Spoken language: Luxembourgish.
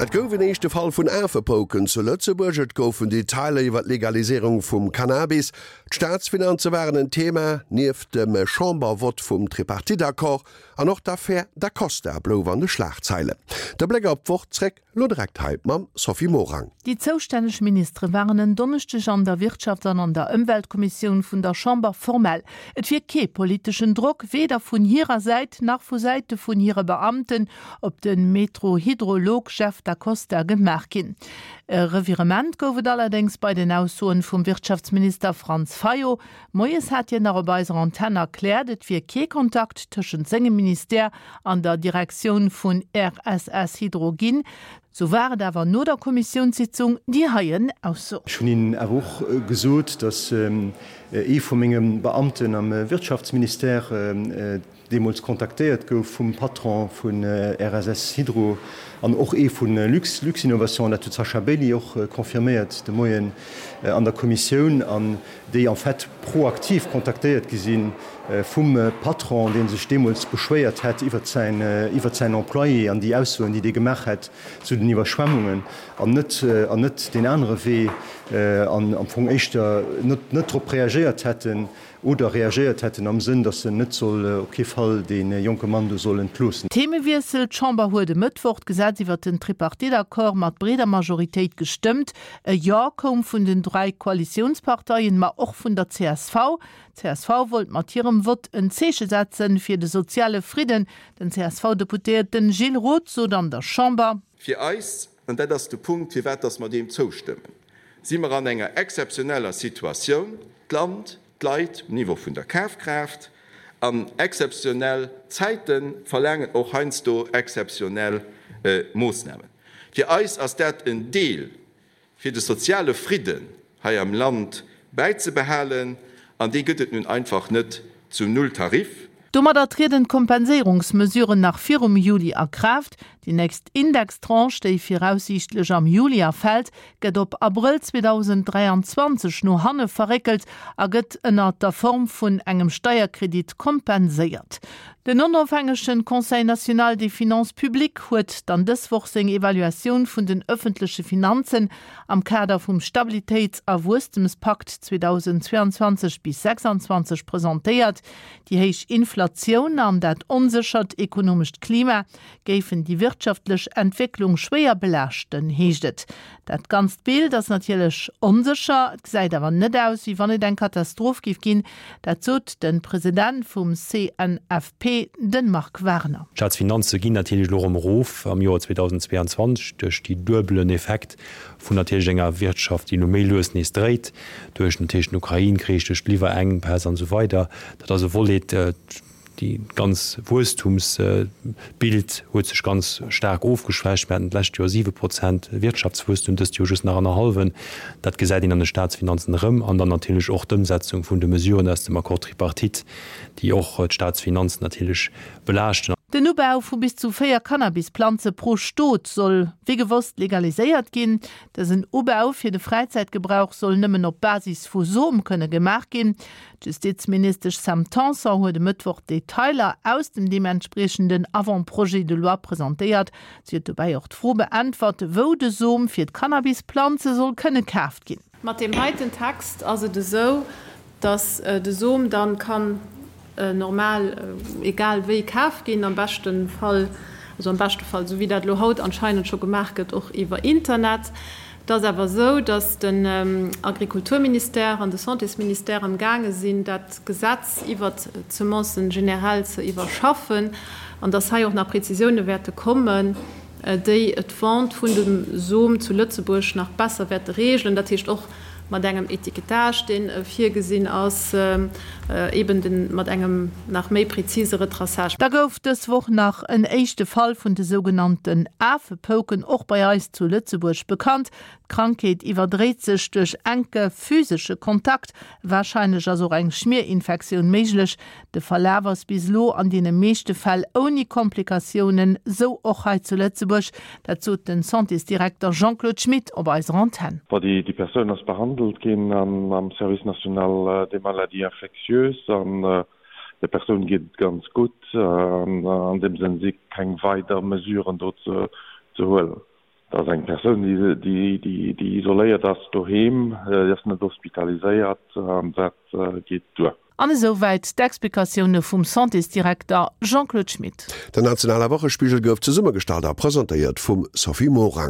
Et gouf en éischte Fall vun Afepouken zu Lëtzebuerg, et goufen Detailer iwwer d'Legaliséierung vum Cannabis, d'Staatsfinanze waren en Thema, nieft dem Chambervott vum Tripartite-Accord, an och d'Affär Da Costa blouf an de Schlagzeilen. De Bléck op d'Woch zréck Lo direkt hei mam Sophie Morang. Déi zoustänneg Ministere waren en Donneschdeg an der Wirtschafts an an der Ëmweltkommissioun vun der Chamber formell. Et wier kee politeschen Drock, weder vun hirer Säit nach vu Säite vun hire Beamten, op de Meteohydrolog Jeff Da Costa gemaach ginn. E Revirement gouf et allerdéngs bei den Aussoen vum Wirtschaftsminister Franz Fayot. Moies hat hien nach op eiser Antenn erkläert, et wier kee Kontakt tëschent sengem Ministère an der Direktioun vun RSS Hydro ginn. Sou war et awer no der Kommissiounssitzung déi heien Ausso. Ech hunn hinnen awer och gesot, datt ee vu menge Beamten am Wirtschaftsministère deemools kontaktéiert gouf vum Patron vu RSS Hydro an och ee vu Lux, Luxinnovation, dat huet d'Sasha Bailey och confirméiert de Moien an der Kommissioun, an déi en fait proaktiv kontaktéiert gi si vum Patron, dee sech deemools beschwéiert hätt iwwert säin, iwwert säin Employé an déi Aussoen, déi dee gemaach hätt zu den Iwwerschwemmungen, an net, an net deen anere Wee an am Fong éischter net, net drop reagéiert hätten, Oder reagéiert hätten am Sënn, datt en net soll, op kee Fall dee jonke Mann do soll entloossen. Themewiessel, D'Chamber huet e Mëttwoch d'Gesetz iwwer den Tripartite-Accord mat breeder Majoritéit gestëmmt. E Jo koum vun den 3 Koalitiounsparteien, ma och vun der csv. D'CSV wollt mat hirem Vott en Zeeche setzen fir de soziale Fridden. Den CSV-Deputéierten Gilles Roth sot an der Chamber. Fir eis, an dat ass de Punkt, firwat dass mer deem zoustëmmen, si mer an enger exzeptioneller Situatioun, d'Land, d'Leit um Niveau vun der Kafkraaft, an exzeptionell Zäite verlaangen och heiansdo exzeptionell Moossnamen. Fir eis ass dat en Deel fir de soziale Fridden hei am Land bäizebehalen, an dee gëtt et nun einfach net zum Nulltarif. Domadder trieden d'Kompenséierungsmesuren nach virum Juli a Kraaft. Déi nächst Indextranche, déi viraussiichtlech am Juli erfält, gëtt op Abrëll 2023 no hanne verréckelt a gëtt ënner der Form vun engem Steierkredit kompenséiert. Den onofhängegen Conseil national des finances publiques huet dann dës Woch seng Evaluatioun vun den ëffentleche Finanzen am Kader vum Stabilitéits a Wuesstemspakt 2022 bis 26 presentéiert. Déi héich Inflatioun an dat onséchert ekonomescht Klima géifen déi wirtschaftlech Entwécklung schwéier belaaschten, heescht et. Dat ganzt Bild ass natierlech onsécher, et gesäit awer net aus, wéi wann et eng Katastroph géif ginn. Dat sot de President vum CNFP, de Marc Wagner. D'Staatsfinanze ginn natierlech elo erëm erof am Joer 2022 duerch déi duebelen Effekt vun natierlech enger Wirtschaft, déi elo méi lues nees dréit, duerch natierlech den Ukrain-Krich, duerch d'Liwwerenkpäss an esou weider. Dat ass e Volet. Déi ganz Wuesstumsbild huet sech ganz staark ofgeschwächt. Mir haten d'lescht Joer 7 Prozent Wirtschaftswuesstum, dëst Joer just nach annerhallwen. Dat gesäit een an de Staatsfinanzen erëm. An dann natierlech och d'Ëmsetzung vun de Mesuren aus dem Accord tripartite, déi och d'Staatsfinanzen natierlech belaaschten. Den Ubau vu bis zu 4 Cannabisplanze pro Stot soll wéi gewosst legaliséiert ginn. Dësen Ubau fir de Fräizäitgebrauch soll nëmmen op Basis vu Som kënne gemaach ginn. D'Justizministesch Sam Tanson huet e Mëttwoch d'Detailer aus dem deementspriechenden Avant-projet de loi presentéiert. Si huet dobäi och d'Fro beäntwert, wou de Som fir d'Cannabisplanze soll kënne kaaft ginn. Mat deem heiten Text ass et esou, datt de Som dann kann normal egal wéi kaf ginn, am beschte Fall, also am beschte Fall, esou wéi dat elo haut anscheinend scho gemaach gëtt, och iwwer Internet. Et ass awer esou, datt den Agrikulturministère an de Santésministère am gaange sinn, dat Gesetz iwwert d'Semencen generell ze iwwerschaffen an datt hei och nach Prezisioune wäerte kommen, déi d'Vente vun dem Som zu Lëtzebuerg nach besser wäerte reegelen, dat heescht och mat engem Étiquetage, dee virgesinn ass, eben de mat engem nach méi prezise Retraçage. Da gouf dës Woch nach en éischte Fall vun de sougenannten Afepouken och bei eis zu Lëtzebuerg bekannt. D'Krankheet iwwerdréit sech duerch enke physesche Kontakt. Warscheinlech ass och eng Schmierinfektioun méiglech. De Verlaf ass bis elo an deene meeschte Fäll ouni Komplikatiounen, sou och hei zu Lëtzebuerg. Dat sot den Santésdirekter Jean-Claude Schmit op eiser Antenn. Bon, déi Persoun ass behandelt ginn am Service national des maladies infectieuses an der Persoun geet et ganz gutt. An deem Sënn si keng weider Mesuren do ze huelen. Dat ass eng Persoun, déi isoléiert ass doheem, déi ass net hospitaliséiert an dat geet duer. An esou wäit d'Explikatioune vum Santésdirekter Jean-Claude Schmit. Den nationale Wochespigel gouf zesummegestallt a presentéiert vum Sophie Morang.